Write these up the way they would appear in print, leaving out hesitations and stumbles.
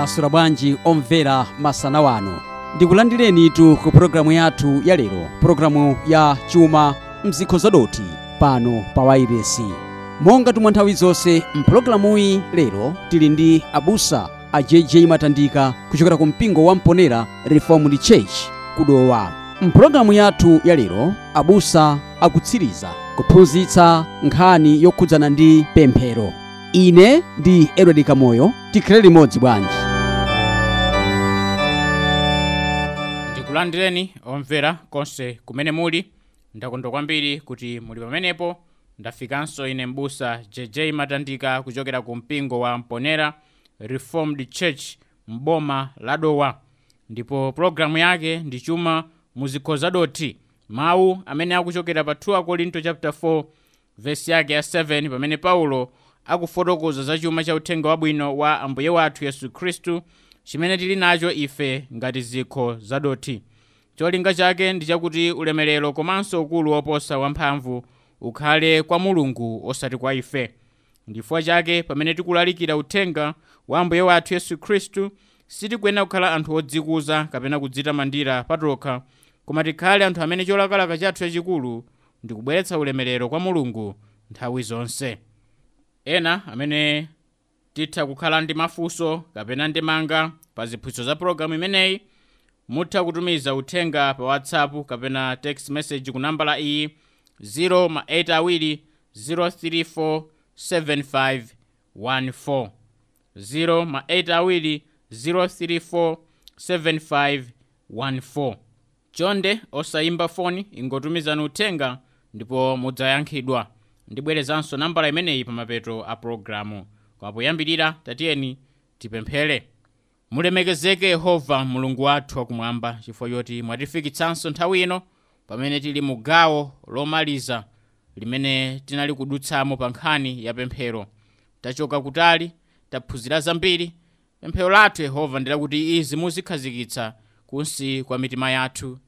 Mwaswera bwanji omvera masana wano. Ndikulandirenitu ku pulogalamu yathu ya lero, pulogalamu ya chuma mzikho zadothi pano pa wailesi. Monga tumwa nthawi zonse mpulogalamuyi lero tili ndi abusa a JJ Matandika kuchokera ku mpingo wa Mponera Reformed Church kudowa. Mpulogalamu yathu ya lero abusa akutsiriza kuphunzitsa nkhani yokhudzana ndi pemphero. Ine ndi Edward Kamoyo, tikhale limodzi bwanji. Ndikulandireni omvera konse kumene muli. Ndakondwa kwambiri kuti muli pamenepo. Ndafikanso ine mbusa JJ Matandika kuchokera ku mpingo wa Mponera Reformed Church mboma la Dowa, ndipo pulogalamu yake ndi chuma muzikho zadothi, mawu amene akuchokera pa 2 Korinto chapter 4 verse yake ya 7, pamene Paulo akufotokoza za chuma cha uthenga wabwino wa Ambuye wathu Yesu Khristu chimene tili nacho ife ngati zikho zadothi. Cholinga chake ndi chakuti ulemerero komanso ukulu woposa wamphamvu ukhale kwa Mulungu osati kwa ife. Ndifukwa chake pamene tikulalikira uthenga wa Ambuye wathu Yesu Khristu sitikuyenera kukhala anthu odzikuza kapena kudzitamandira patokha, koma tikhale anthu amene cholakalaka chathu chachikulu ndi kubweretsa ulemerero kwa Mulungu nthawi zonse. Ena amene titha kukhala ndi mafunso kapena ndemanga pa ziphunzitso za pulogalamu imeneyi, mutha kutumiza uthenga pa WhatsApp kapena text message ku nambala iyi 082 034 7514, 082 034 7514. Chonde osayimba foni, ingotumizani uthenga ndipo mudzayankhidwa. Ndibwerezanso nambala imeneyi pa mapeto a pulogalamu. Koma poyambirira tatiyeni tipemphere. Mulemekezeke Yehova Mulungu wathu wakumwamba, chifukwa choti mwatifikitsanso nthawi ino pamene tili mu gawo lomaliza limene tinali kudutsamo pa nkhani ya pemphero. Tachoka kutali, taphunzira zambiri. Pemphero lathu Yehova ndi lakuti izi muzikhazikitsa kunsi kwa mitima yathu,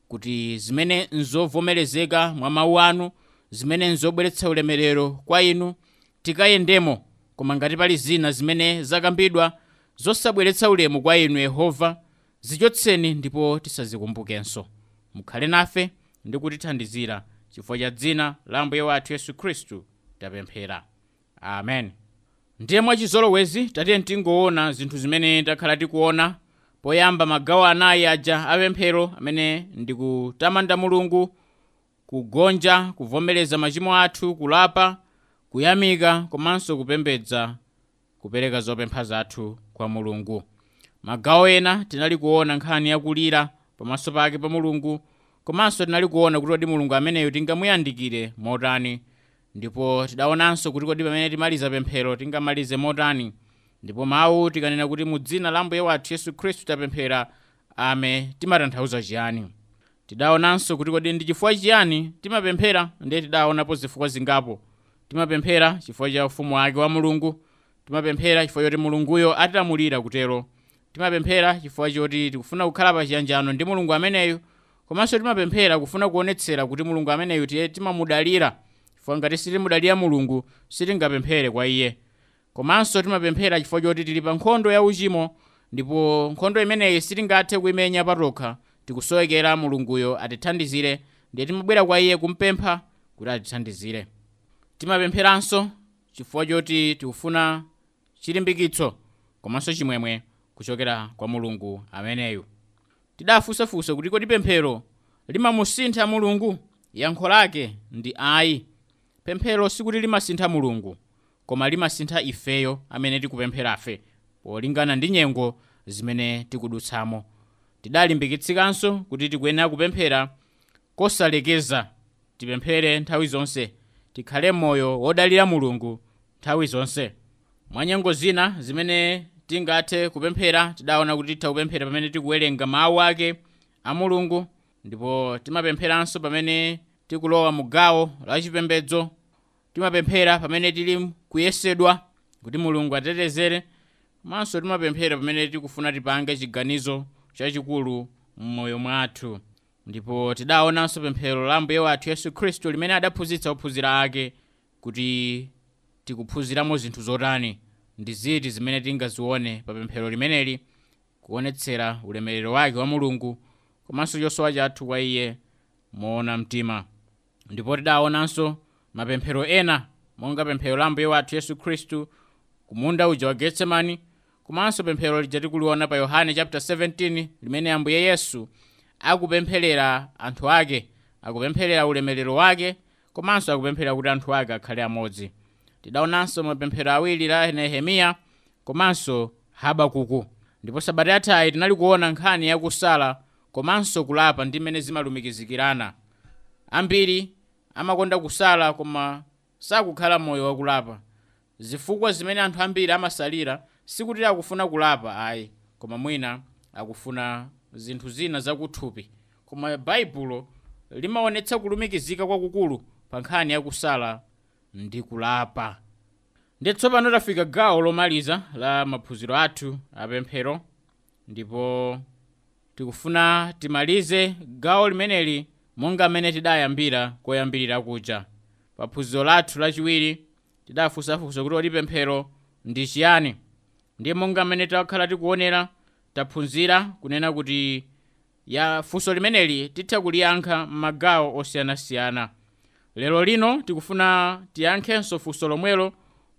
kuti zimene nzovomerezeka mwa mawu anu, zimene nzobweretsa ulemerero kwa inu, tikayendemo. Koma ngati pali zina zimene zakambidwa zosabweretsa ulemu kwa inu Yehova, zichotseni ndipo tisazikumbukenso. Mukhale nafe ndi kutithandizira, chifukwa cha dzina la Ambuye wathu Yesu Khristu tapemphera, amen. Ndiye mwachizolowezi tatiye tingoona zinthu zimene takhala tikuona. Poyamba magawo anayi aja apemphero amene ndi kutamanda Mulungu, kugonja, kuvomereza machimo athu, kulapa, kuyamika komanso kupembedza, kupereka zopempha zathu kwa Mulungu. Magawo ena tinali kuona nkhani yakulira pamaso pake pa Mulungu, komanso tinali kuona kuti kodi Mulungu ameneyo tingamuyandikire motani, ndipo tidaonanso kuti kodi pamene timaliza pemphero tingamalize motani. Ndipo mawu tikanena kuti mu dzina la Ambuye wathu Yesu Khristu tapemphera, ame, timatanthauza chiyani? Tidaonanso kuti kodi ndi chifukwa chiyani timapemphera, ndiye tidaonapo zifukwa zingapo. Timapemphera chifukwa cha ufumu wake wa Mulungu, timapemphera chifukwa choti Mulunguyo atilamulira kutero, timapemphera chifukwa choti tikufuna kukhala pa chiyanjano ndi Mulungu ameneyo, komanso timapemphera kufuna kuonetsera kuti Mulungu ameneyo tiye timamudalira, chifukwa ngati sitimudalira Mulungu sitingapemphere kwa iye. Komanso timapemphera chifukwa choti tili pa nkhondo ya uchimo, ndipo nkhondo imeneyi sitingathe kuimenya patokha, tikusowekera Mulunguyo atithandizire, ndiye timabwera kwa iye kumpempha kuti atithandizire. Timapempheranso chifukwa choti tikufuna chilimbikitso komanso chimwemwe kuchokera kwa Mulungu ameneyu. Tidafunsafunsa kuti kodi pemphero limamusintha Mulungu? Yankho lake ndi ayi. Pemphero sikuti limasintha Mulungu, koma limasintha ifeyo amene tikupempherafe polingana ndi nyengo zimene tikudutsamo. Tidalimbikitsidwanso kuti tikuyenera kupemphera kosalekeza, tipemphere nthawi zonse, tikhale moyo wodalira Mulungu nthawi zonse. Mwa nyengo zina zimene tingathe kupemphera, tidaona kuti titha kupemphera pamene tikuwerenga mawu ake a Mulungu, ndipo timapempheranso pamene tikulowa mu gawo la chipembedzo, timapemphera pamene tili kuyesedwa kuti Mulungu atitetezere, komanso timapemphera pamene tikufuna tipange chiganizo chachikulu m'moyo mwathu. Ndipo tidaonanso pemphero la Ambuye wathu Yesu Khristu limene adaphunzitsa ophunzira ake kuti tikuphunziramo zinthu zotani. ndi ziti zimene tingazione pa pemphero limeneli kuonetsera ulemerero wake wa Mulungu komanso chosowa chathu kwa iye moona mtima. Ndipo tidaonanso mapemphero ena monga pemphero la Ambuye wathu Yesu Khristu kumunda uja wa Getsemani, komanso pemphero lija tikuliona pa Yohane chapter 17 limene Ambuye Yesu akupempherera anthu ake, akupempherera ulemerero wake komanso akupempherera kuti anthu ake akhale amodzi. Tidaonanso mapemphero awiri la Nehemiya komanso Habakuku. Ndipo sabata yathayi tinali kuona nkhani yakusala komanso kulapa ndi mmene zimalumikizikirana. Ambiri amakonda kusala koma sakukhala moyo wakulapa. Zifukwa zimene anthu ambiri amasalira sikuti akufuna kulapa ayi, koma mwina akufuna zinthu zina zakuthupi. Koma Baibulo limaonetsa kulumikizika kwakukulu pa nkhani yakusala ndi kulapa. Ndi tsopano tafika gawo lomaliza la maphunziro athu apemphero, ndipo tikufuna timalize gawo limeneli monga mmene tidayambira koyambirira kuja. Pa phunziro lathu lachiwiri tidafunsafunsa kuti kodi pemphero ndi chiyani. Ndiye monga mmene takhala tikuonera, taphunzira kunena kuti ya funso limeneli titha kuliyankha m'magawo osiyanasiyana. Lero lino tikufuna tiyankhenso funso lomwelo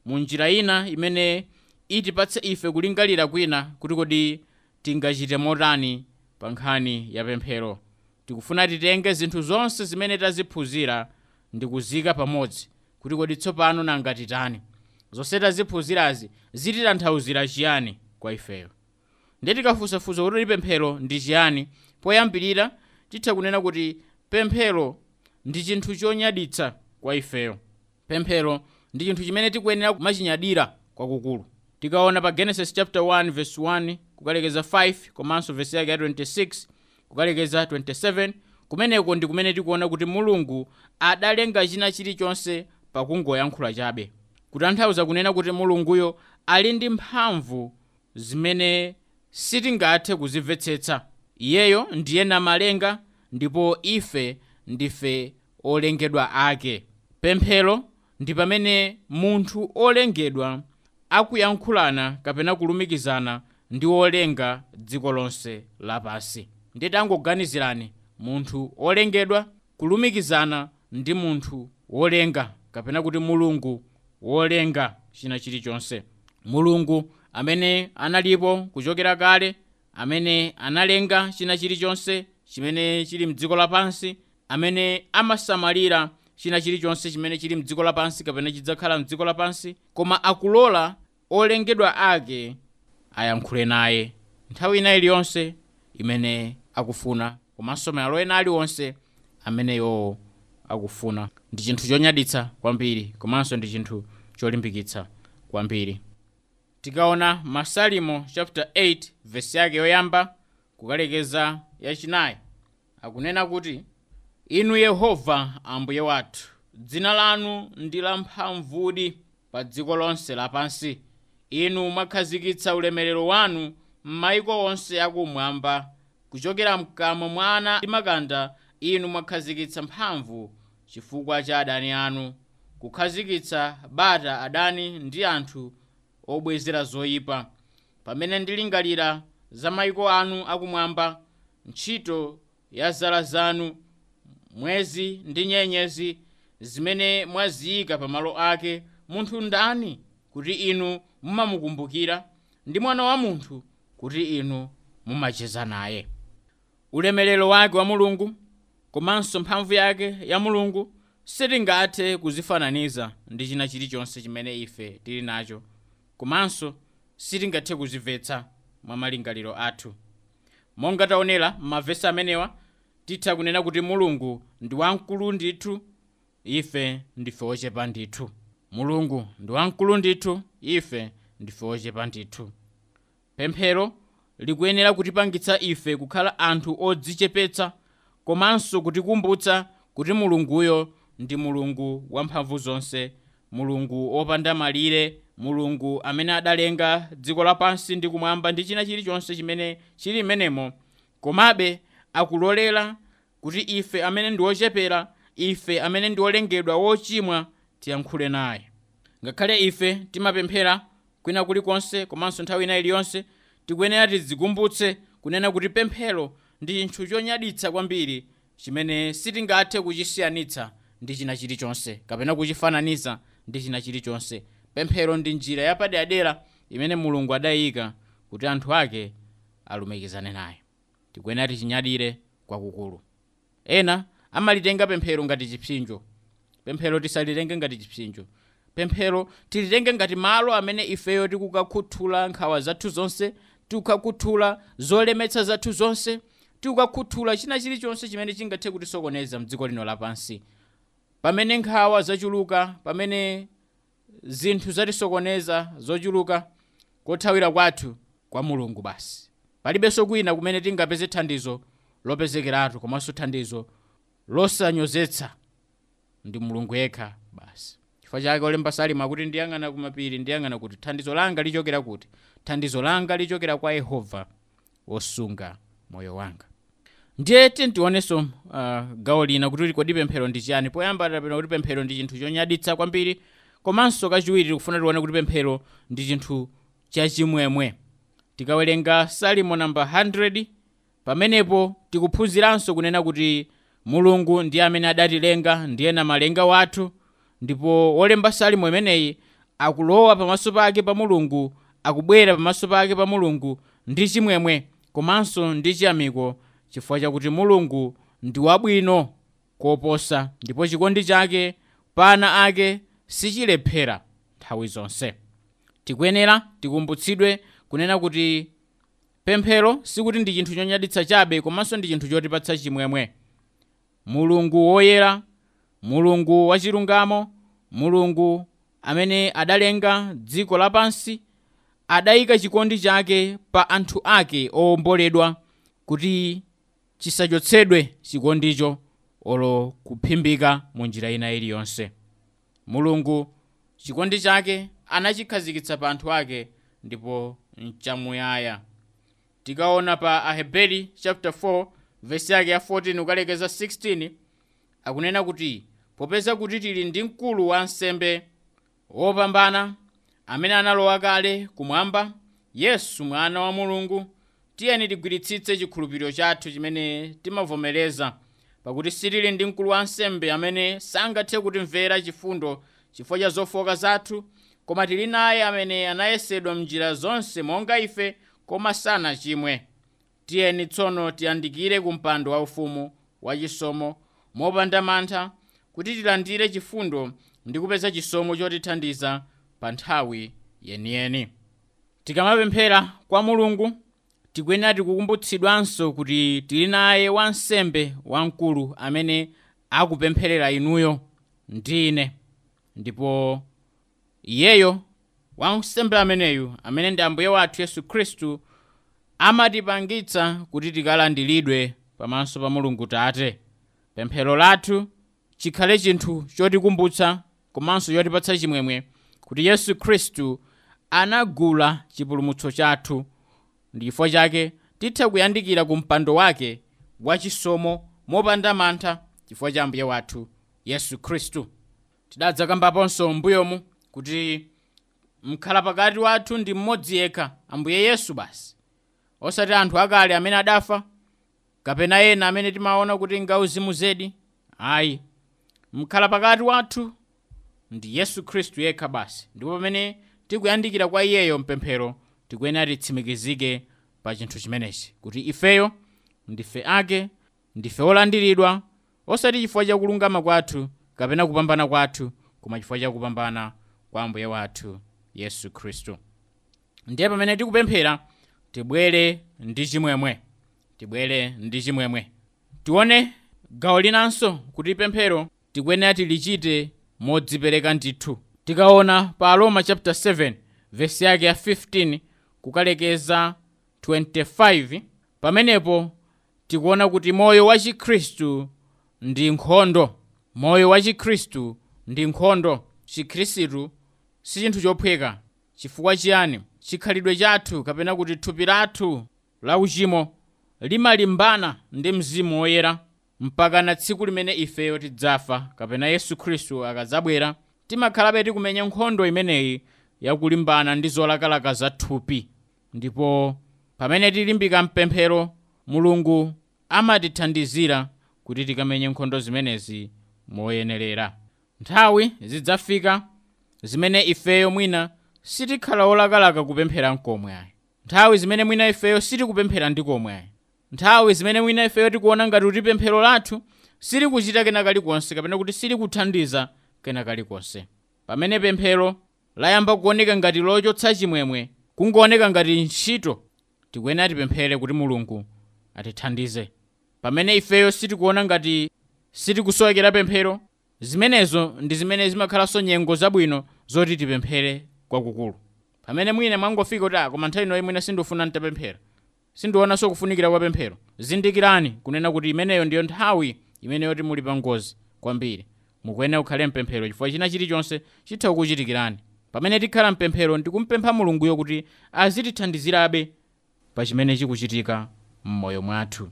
mu njira ina imene itipatse ife kulingalira kwina kuti kodi tingachite motani pa nkhani ya pemphero. Tikufuna titenge zinthu zonse zimene taziphunzira ndi kuzika pamodzi kuti kodi tsopano nanga titani. Zonse taziphunzirazi zititanthauzira chiyani kwa ifeyo. Ndiye tikafunsafunsa kuti pemphero ndi chiyani, poyambirira titha kunena kuti pemphero ndi chinthu chonyaditsa kwa ifeyo. Pemphero ndi chinthu chimene tikuyenera kumachinyadira kwakukulu. Tikaona pa Genesis chapter 1 verse 1 kukalekeza 5 komanso verse yake ya 26 kukalekeza 27, kumeneko ndi kumene tikuona kuti Mulungu adalenga china chilichonse pakungoyankhula chabe. Kutanthauza kunena kuti Mulunguyo ali ndi mphamvu zimene sitingathe kuzimvetsetsa. Iyeyo ndiye namalenga ndipo ife ndife olengedwa ake. Pemphero ndi pamene munthu olengedwa akuyankhulana kapena kulumikizana ndi wolenga dziko lonse lapansi. Ndiye tangoganizirani munthu olengedwa kulumikizana ndi munthu wolenga kapena kuti Mulungu wolenga china chilichonse. Mulungu amene analipo kuchokera kale, amene analenga china chilichonse chimene chili mdziko lapansi, amene amasamalira china chilichonse chimene chili mdziko lapansi kapena chidzakhala mdziko lapansi, koma akulola olengedwa ake ayankhule naye nthawi ina iliyonse imene akufuna, komanso malo ena aliwonse amene iwowo akufuna. Ndi chinthu chonyaditsa kwambiri komanso ndi chinthu cholimbikitsa kwambiri. Tikaona Masalimo chapter 8 verse yake yoyamba kukalekeza yachinayi, akunena kuti, Inu Yehova Ambuye wathu, dzina lanu ndi lamphamvudi pa dziko lonse lapansi. Inu mwakhazikitsa ulemerero wanu m'mayiko onse akumwamba. Kuchokera mkamwa mwa ana ndi makanda inu mwakhazikitsa mphamvu chifukwa cha adani anu, kukhazikitsa bata adani ndi anthu obwezera zoyipa. Pamene ndilingalira za mayiko anu akumwamba, ntchito ya zala zanu, mwezi ndi nyenyezi zimene mwaziyika pamalo ake, munthu ndani kuti inu mumamukumbukira, ndi mwana wa munthu kuti inu mumacheza naye. Ulemerero wake wa Mulungu komanso mphamvu yake ya Mulungu sitingathe kuzifananiza ndi china chilichonse chimene ife tili nacho, komanso sitingathe kuzimvetsa mwa malingaliro athu. Monga taonera m'mavesi amenewa, titha kunena kuti Mulungu ndi wamkulu ndithu, ife ndife ochepa ndithu. Mulungu ndi wamkulu ndithu, ife ndife ochepa ndithu. Pemphero likuyenera kutipangitsa ife kukhala anthu odzichepetsa komanso kutikumbutsa kuti Mulunguyo ndi Mulungu wamphamvu zonse, Mulungu wopanda malire, Mulungu amene adalenga dziko lapansi ndi kumwamba ndi china chilichonse chimene chili m'menemo. Komabe akulolera kuti ife amene ndi ochepera, ife amene ndi olengedwa wochimwa, tiyankhule naye. Ngakhale ife timapemphera Kwina kulikonse komanso nthawi ina iliyonse tikuyenera tidzikumbutse kunena kuti pemphero ndi chinthu chonyaditsa kwambiri chimene sitingathe kuchisiyanitsa ndi china chilichonse kapena kuchifananiza ndi china chilichonse. Pemphero ndi njira yapaderadera imene Mulungu adayika kuti anthu ake alumikizane naye. Tikuyenera tichinyadire kwakukulu. Ena amalitenga pemphero ngati chipsinjo. Pemphero tisalitenge ngati chipsinjo. Pemphero tilitenge ngati malo amene ifeyo tikukakhuthula nkhawa zathu zonse, tikukakhuthula zolemetsa zathu zonse, tikukakhuthula china chilichonse chimene chingathe kutisokoneza mdziko lino lapansi. Pamene nkhawa zachuluka, pamene zinthu zatisokoneza zochuluka, kothawira kwathu kwa Mulungu basi. Palibenso kwina kumene tingapeze thandizo lopezekeratu komanso thandizo losanyozetsa, ndi Mulungu yekha basi. Chifukwa chake olemba Salimo akuti, ndiyang'ana kumapiri, ndiyang'ana kuti thandizo langa lichokera kuti? Thandizo langa lichokera kwa Yehova wosunga moyo wanga. Ndiye tionenso gawo lina kuti kodi pemphero ndi chiyani. Poyamba tapena kuti pemphero ndi chinthu chonyaditsa kwambiri, komanso kachiwiri tikufuna tione kuti pemphero ndi chinthu chachimwemwe. Tikawerenga Salimo namba 100, pamenepo tikuphunziranso kunena kuti Mulungu ndiye amene adatilenga, ndiye namalenga wathu, ndipo wolemba Salimo imeneyi akulowa pamaso pake pa Mulungu, akubwera pamaso pake pa Mulungu ndi chimwemwe komanso ndi chiyamiko, chifukwa chakuti Mulungu ndi wabwino koposa ndipo chikondi chake pa ana ake sichilephera nthawi zonse. Tikuyenera tikumbutsidwe kunena kuti pemphero sikuti ndi chinthu chonyaditsa chabe, komanso ndi chinthu chotipatsa chimwemwe. Mulungu woyera, Mulungu wachilungamo, Mulungu amene adalenga dziko lapansi, adayika chikondi chake pa anthu ake owomboledwa kuti chisachotsedwe chikondicho olo kuphimbika mu njira ina iliyonse. Mulungu chikondi chake anachikhazikitsa pa anthu ake ndipo nchamuyaya. Tikaona pa Aheberi chapter 4 verse yake ya 14 ukalekeza 16, akunena kuti popeza kuti tili ndi mkulu wa ansembe wopambana amene analowa kale kumwamba, Yesu mwana wa Mulungu, tiyeni tigwiritsitse chikhulupiriro chathu chimene timavomereza, pakuti sitili ndi mkulu wa ansembe amene sangathe kutimvera chifundo chifukwa cha zofoka zathu, koma tili naye amene anayesedwa m'njira zonse monga ife, koma sanachimwe. Tiyeni tsono tiyandikire ku mpando waufumu wachisomo mopanda mantha, kuti tilandire chifundo ndi kupeza chisomo chotithandiza pa nthawi yeniyeni. Tikamapemphera kwa Mulungu tikuyenera tikukumbutsidwanso kuti tili naye wansembe wamkulu amene akupempherera inuyo ndi ine, ndipo iyeyo wansembe ameneyu amene ndi Ambuye wathu Yesu Khristu amatipangitsa kuti tikalandiridwe pamaso pa Mulungu Tate. Pemphero lathu chikhale chinthu chotikumbutsa komanso chotipatsa chimwemwe kuti Yesu Khristu anagula chipulumutso chathu, ndi chifukwa chake titha kuyandikira ku mpando wake wachisomo mopanda mantha chifukwa cha Ambuye wathu Yesu Khristu. Tidadzakambaponso m'mbuyomu kuti mkhala pakati wathu ndi mmodzi yekha, Ambuye Yesu basi, osati anthu akale amene adafa kapena ena amene timaona kuti ngauzimu zedi. Ayi, mkhala pakati wathu ndi Yesu Khristu yekha basi, ndipo pamene tikuyandikira kwa iyeyo mpemphero tikuyenera titsimikizike pa chinthu chimenechi kuti ifeyo ndife ake, ndife olandiridwa, osati chifukwa cha kulungama kwathu kapena kupambana kwathu, koma chifukwa cha kupambana kwa Ambuye wathu Yesu Khristu. Ndiye pamene tikupemphera tibwere ndi chimwemwe, tibwere ndi chimwemwe. Tione gawo linanso kuti pemphero tikuyenera tilichite modzipereka ndithu. Tikaona pa Aroma chapter 7 verse yake ya 15 kukalekeza 25, pamenepo tikuona kuti moyo wa Chikhristu ndi nkhondo. Moyo wa Chikhristu ndi nkhondo. Chikhristu si chinthu chophweka. Chifukwa chiyani? Chikhalidwe chathu kapena kuti thupi lathu la uchimo limalimbana ndi Mzimu Woyera mpaka na tsiku limene ifeyo tidzafa kapena Yesu Khristu akadzabwera. Timakhalabe tikumenya nkhondo imeneyi yakulimbana ndi zolakalaka za thupi. Ndipo pamene tilimbika mpemphero, Mulungu amatithandizira kuti tikamenye nkhondo zimenezi moyenerera. Nthawi zidzafika zimene ifeyo mwina sitikhala olakalaka kupemphera nkomwe ayi. Nthawi zimene mwina ifeyo sitikupemphera ndi komwe ayi. Nthawi zimene mwina ifeyo tikuona ngati kuti pemphero lathu silikuchita kena kalikonse kapena kuti silikuthandiza kena kalikonse. Pamene pemphero layamba kuoneka ngati lochotsa chimwemwe, kungooneka ngati ntchito, tikuyenera tipemphere kuti Mulungu atithandize. Pamene ifeyo sitikuona ngati sitikusowekera pemphero, zimenezo ndi zimene zimakhalanso nyengo zabwino zoti tipemphere kwakukulu. Pamene mwina mwangofika kuti koma nthawi inoyi mwina sindifuna ntapemphera, sindionanso kufunikira kwa pemphero, zindikirani kunena kuti imeneyo ndiyo nthawi imene yoti muli pa ngozi kwambiri. Mukuyenera kukhale mpemphero chifukwa china chilichonse chitha kukuchitikirani. Pamene tikhala mpemphero ndikumpempha Mulunguyo kuti azitithandizirabe pa chimene chikuchitika m'moyo mwathu.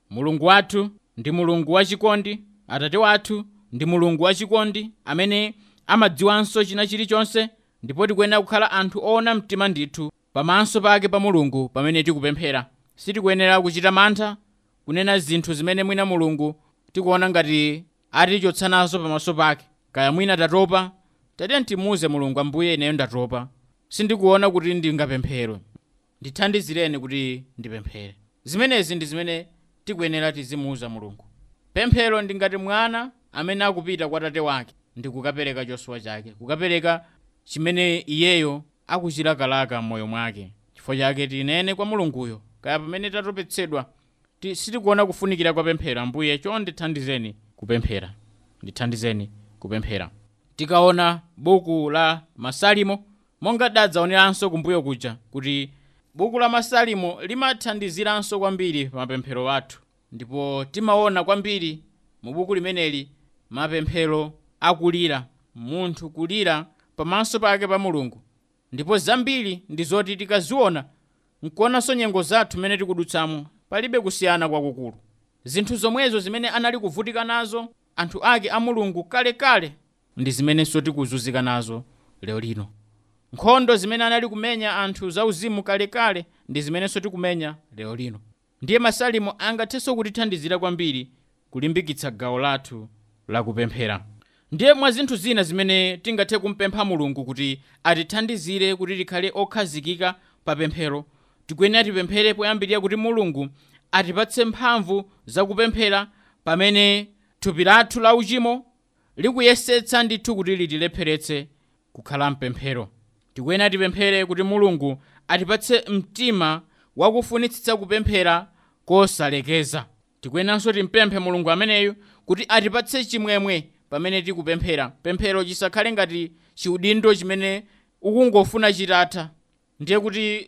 Mulungu wathu ndi Mulungu wachikondi, Atate wathu ndi Mulungu wachikondi amene amadziwanso china chilichonse, ndipo tikuyenera kukhala anthu oona mtima ndithu pamaso pake pa Mulungu pamene tikupemphera. Sitikuyenera kuchita mantha kunena zinthu zimene mwina Mulungu tikuona ngati atichotsa nazo pamaso pake. Kaya mwina tatopa, tatiye timuuze Mulungu, Ambuye ineyo ndatopa, sindikuona kuti ndingapemphere, ndithandizireni kuti ndipemphere. Zimenezi ndi zimene tikuyenera tizimuuza Mulungu. Pemphero ndi ngati mwana amene akupita kwa tate wake ndi kukapereka chosowa chake, kukapereka chimene iyeyo akuchilakalaka m'moyo mwake. Chifukwa chake tinene kwa Mulunguyo, kaya pamene tatopetsedwa, sitikuona kufunikira kwa pemphero, Ambuye chonde thandizeni kupemphera, ndithandizeni kupemphera. Tikaona buku la Masalimo, monga dadzaoneranso kumbuyo kuja kuti buku la Masalimo limathandiziranso kwambiri pa mapemphero athu, ndipo timaona kwambiri mu buku limeneli mapemphero akulira, munthu kulira pamaso pake pa Mulungu. Ndipo zambiri ndi zoti tikaziona nkuonanso nyengo zathu mmene tikudutsamo, palibe kusiyana kwakukulu. Zinthu zomwezo zimene anali kuvutika nazo anthu ake a Mulungu kalekale ndi zimenenso tikuzunzika nazo lero lino. Nkhondo zimene anali kumenya anthu zauzimu kalekale ndi zimenenso tikumenya lero lino. Ndiye Masalimo angathenso kutithandizira kwambiri kulimbikitsa gawo lathu lakupemphera. Ndiye mwa zinthu zina zimene tingathe kumpempha Mulungu kuti atithandizire kuti tikhale okhazikika pa pemphero, tikuyenera tipemphere poyambirira kuti Mulungu atipatse mphamvu zakupemphera pamene thupi lathu la uchimo likuyesetsa ndithu kuti litilepheretse kukhala mpemphero. Tikuyenera tipemphere kuti Mulungu atipatse mtima wakufunitsitsa kupemphera kosalekeza. Tikuyeneranso timpemphe Mulungu ameneyu kuti atipatse chimwemwe pamene tikupemphera. Pemphero chisakhale ngati chiudindo chimene ukungofuna chitatha, ndiye kuti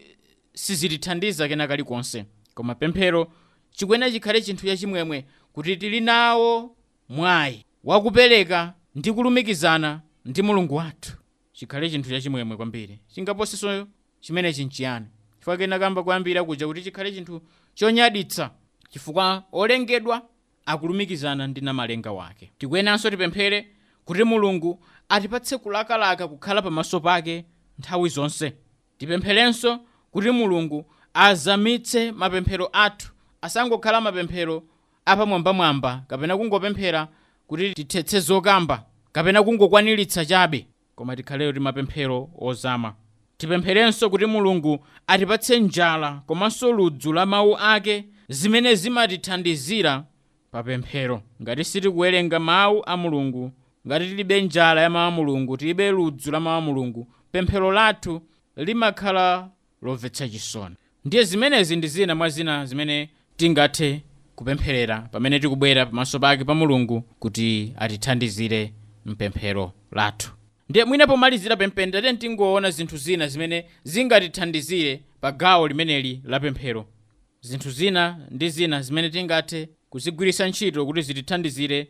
sizitithandiza kena kalikonse. Koma pemphero chikuyenera chikhale chinthu chachimwemwe kuti tili nawo mwayi wakupereka ndi kulumikizana ndi Mulungu wathu. Chikhale chinthu chachimwemwe kwambiri. Chingaposenso chimenechi nchiyani? Chifukwa kena kamba kuyambira kuja kuti chikhale chinthu chonyaditsa, chifukwa olengedwa akulumikizana ndi namalenga wake. Tikuyeneranso tipemphere kuti Mulungu atipatse kulakalaka kukhala pamaso pake nthawi zonse. Tipempherenso kuti Mulungu azamitse mapemphero athu, asangokhala mapemphero apamwambamwamba kapena kungopemphera kuti tithetse zokamba kapena kungokwaniritsa chabe, koma tikhaleyo ndi mapemphero ozama. Tipempherenso kuti Mulungu atipatse njala komanso ludzu la mawu ake zimene zimatithandizira pa pemphero. Ngati sitikuwerenga mawu a Mulungu, ngati tilibe njala ya mawu a Mulungu, tilibe ludzu la mawu a Mulungu, pemphero lathu limakhala lomvetsa chisoni. Ndiye zimenezi ndi zina mwa zina zimene tingathe kupempherera pamene tikubwera pamaso pake pa Mulungu kuti atithandizire mpemphero lathu. Ndiye mwina pomalizira pempherero tingoona zinthu zina zimene zingatithandizire pa gawo limeneli la pemphero. Zinthu zina ndi zina zimene tingathe kuzigwiritsa ntchito kuti zitithandizire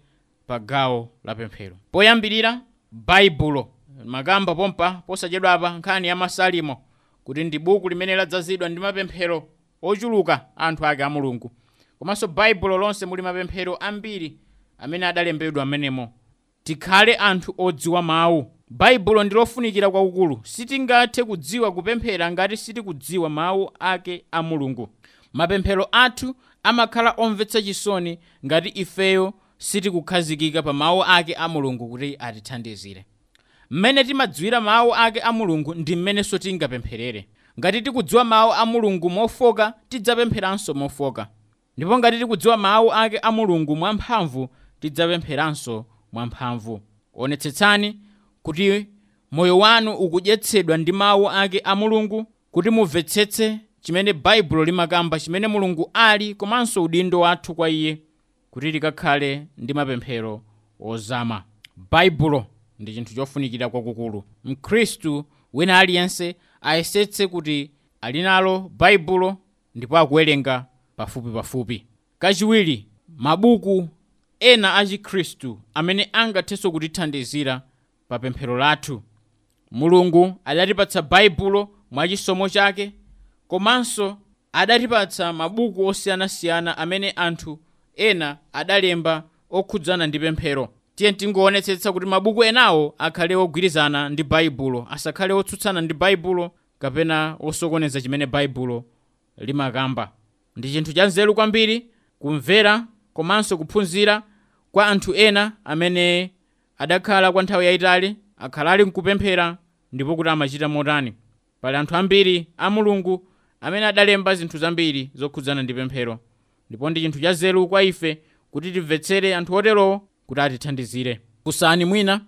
pa gawo la pemphero. Poyambirira, Baibulo. Makamba pompa posachedwa apa nkhani ya Masalimo kuti ndi buku limene ladzazidwa ndi mapemphero ochuluka anthu ake a Mulungu. Komanso Baibulo lonse muli mapemphero ambiri amene adalembedwa amenemo. Tikhale anthu odziwa mawu. Baibulo ndi lofunikira kwakukulu. Sitingathe kudziwa kupemphera ngati sitikudziwa mawu ake a Mulungu. Mapemphero athu amakhala omvetsa chisoni ngati ifeyo sitikukhazikika pa mawu ake a Mulungu kuti atithandizire. Mmene timadziwira mawu ake a Mulungu ndi mmenenso tingapempherere. Ngati tikudziwa mawu a Mulungu mofoka, tidzapempheranso mofoka. Ndipo ngati tikudziwa mawu ake a Mulungu mwamphamvu, tidzapempheranso mwamphamvu. Onetsetsani kuti moyo wanu ukudyetsedwa ndi mawu ake a Mulungu, kuti mumvetsetse chimene Baibulo limakamba, chimene Mulungu ali, komanso udindo wathu kwa iye, kuti tikakhale ndi mapemphero ozama. Baibulo ndi chinthu chofunikira kwakukulu. Mkhristu wina aliyense ayesetse kuti ali nalo Baibulo ndipo akuwerenga pafupipafupi. Kachiwiri, mabuku ena a Chikhristu amene angathenso kutithandizira pa pemphero lathu. Mulungu adatipatsa Baibulo mwachisomo chake, komanso adatipatsa mabuku osiyanasiyana amene anthu ena adalemba okhudzana ndi pemphero. Tiye tingoonetsetsa kuti mabuku enawo akhale ogwirizana ndi Baibulo, asakhale otsutsana ndi Baibulo kapena osokoneza chimene Baibulo limakamba. Ndi chinthu cha nzeru kwambiri kumvera komanso kuphunzira kwa anthu ena amene adakhala kwa nthawi yayitali, akhala ali nkupemphera ndipo kuti amachita motani. Pali anthu ambiri a Mulungu amene adalemba zinthu zambiri zokhudzana ndi pemphero, ndipo ndi chinthu cha nzeru kwa ife kuti timvetsere anthu oterowo kuti atithandizire. Funsani mwina,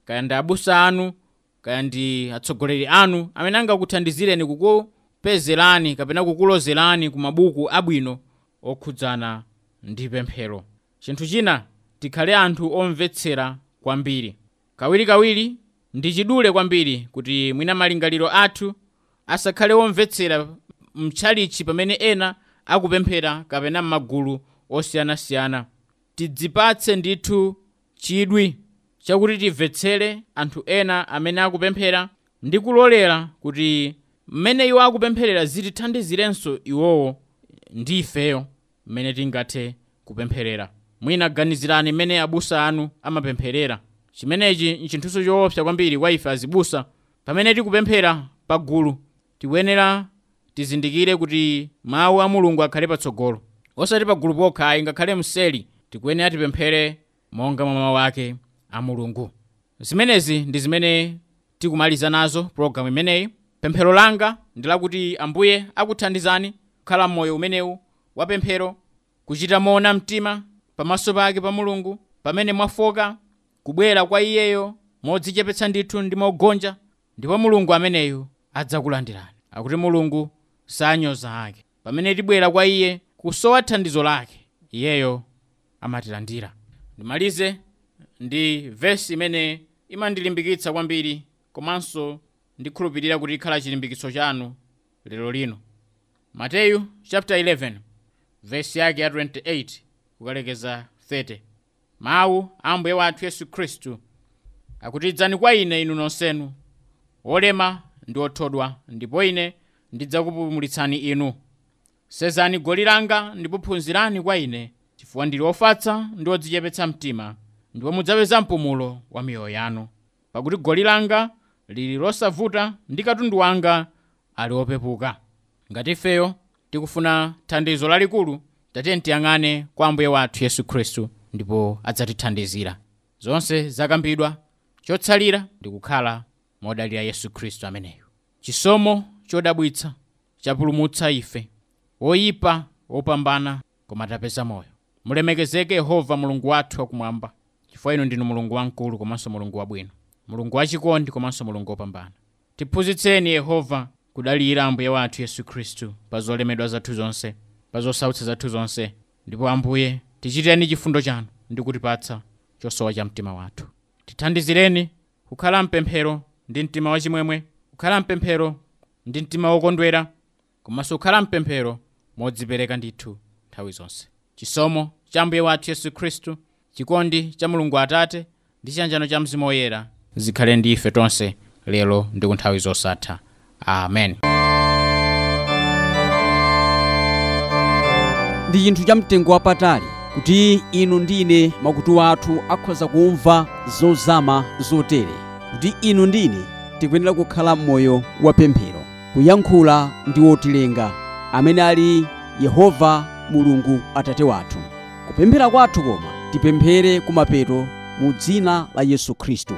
kaya ndi abusa anu, kaya ndi atsogoleri anu amene angakuthandizireni kukupezerani kapena kukulozerani ku mabuku abwino okhudzana ndi pemphero. Chinthu china, tikhale anthu omvetsera kwambiri. Kawirikawiri ndi chidule kwambiri kuti mwina malingaliro athu asakhale omvetsera mtchalichi pamene ena akupemphera kapena m'magulu osiyanasiyana. Tidzipatse ndithu chidwi chakuti timvetsere anthu ena amene akupemphera ndi kulolera kuti mmene iwo akupempherera zitithandizirenso iwowo ndi ifeyo mmene tingathe kupempherera. Mwina ganizirani mmene abusa anu amapempherera. Chimenechi nchinthuso choopsa kwambiri kwa ife azibusa. Pamene tikupemphera pagulu, tikuyenera tizindikire kuti mawu a Mulungu akhale patsogolo, osati pagulu pokha ayi, ngakhale mseri tikuyenera tipemphere monga mwa mawu ake a Mulungu. Zimenezi ndi zimene tikumaliza nazo pologalamu imeneyi. Pemphero langa ndi lakuti Ambuye akuthandizani kukhala m'moyo umenewu wa pemphero, kuchita moona mtima pamaso pake pa Mulungu pamene mwafoka, kubwera kwa iyeyo modzichepetsa ndithu ndi mogonja, ndipo Mulungu ameneyu adzakulandirani. Akuti Mulungu sanyoza ake. Pamene tibwera kwa iye kusowa thandizo lake, iyeyo amatilandira. Ndimalize ndi vesi imene imandilimbikitsa kwambiri, komanso ndikhulupirira kuti ikhala chilimbikitso chanu lero lino. Mateyu chapter 11 vesi yake ya 28 kukalekeza 30. Mawu a Ambuye wathu Yesu Khristu akuti, idzani kwa ine inu nonsenu olema ndi othodwa, ndipo ine ndidzakupumulitsani inu. Sezani goli langa ndipo phunzirani kwa ine, chifukwa ndili ofatsa ndi odzichepetsa mtima, ndipo mudzapeza mpumulo wa miyoyo yanu. Pakuti goli langa lili losavuta ndi katundu wanga ali opepuka. Ngati ifeyo tikufuna thandizo lalikulu, tatiye tiyang'ane kwa Ambuye wathu Yesu Khristu ndipo adzatithandizira. Zonse zakambidwa, chotsalira ndi kukhala modalira Yesu Khristu ameneyo. Chisomo chodabwitsa chapulumutsa ife, woyipa wopambana, koma tapeza moyo. Mulemekezeke Yehova Mulungu wathu wakumwamba, chifukwa inu ndinu Mulungu wamkulu komanso Mulungu wabwino, Mulungu wachikondi komanso Mulungu wopambana. Tiphunzitseni Yehova kudalira Ambuye wathu Yesu Khristu pa zolemedwa zathu zonse, pa zosautsa zathu zonse, ndipo Ambuye tichitireni chifundo chanu ndi kutipatsa chosowa cha mtima wathu. Tithandizireni kukhala mpemphero ndi mtima wachimwemwe, kukhala mpemphero ndi mtima wokondwera, komanso kukhala mpemphero modzipereka ndithu nthawi zonse. Chisomo cha Ambuye wathu Yesu Khristu, chikondi cha Mulungu Atate ndi chiyanjano cha Mzimu Woyera zikhale ndi ife tonse lero ndi ku nthawi zosatha. Amen. Ndi chinthu cha mtengo wapatali kuti inu ndi ine makutu athu akhoza kumva zozama zotere. Kuti inu ndine tikuyenera kukhala m'moyo wa pemphero, kuyankhula ndi wotilenga amene ali Yehova Mulungu Atate wathu. Kupemphera kwathu koma tipemphere kumapeto mu dzina la Yesu Khristu.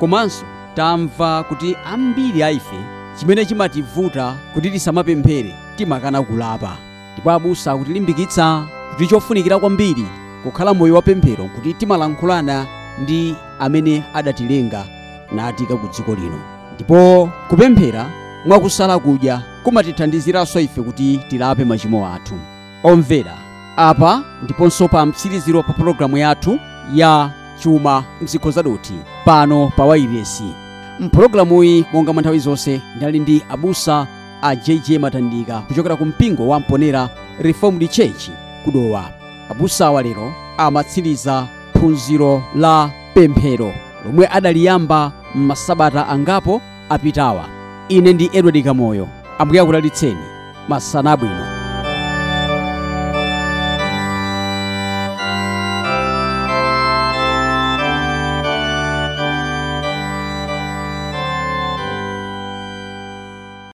Komanso tamva kuti ambiri a ife chimene chimativuta kuti tisamapemphere, timakana kulapa. Ndipo abusa akutilimbikitsa kuti chofunikira kwambiri kukhala moyo wa pemphero kuti timalankhulana ndi amene adatilenga natika ku dziko lino. Ndipo kupemphera mwakusala kudya kumatithandiziranso ife kuti tilape machimo athu. Omvera, apa ndiponso pa mtsiriziro pa pologalamu yathu ya chuma mzikho zadothi pano pa wailesi. Mpulogalamuyi monga mwa nthawi zonse ndinali ndi abusa a JJ Matandika kuchokera ku mpingo wa Mponera Reformed Church kudowa. Abusawa lero amatsiriza phunziro la pemphero lomwe adaliyamba m'masabata angapo apitawa. Ine ndi Edward Kamoyo. Ambuye akudalitseni. Masana abwino.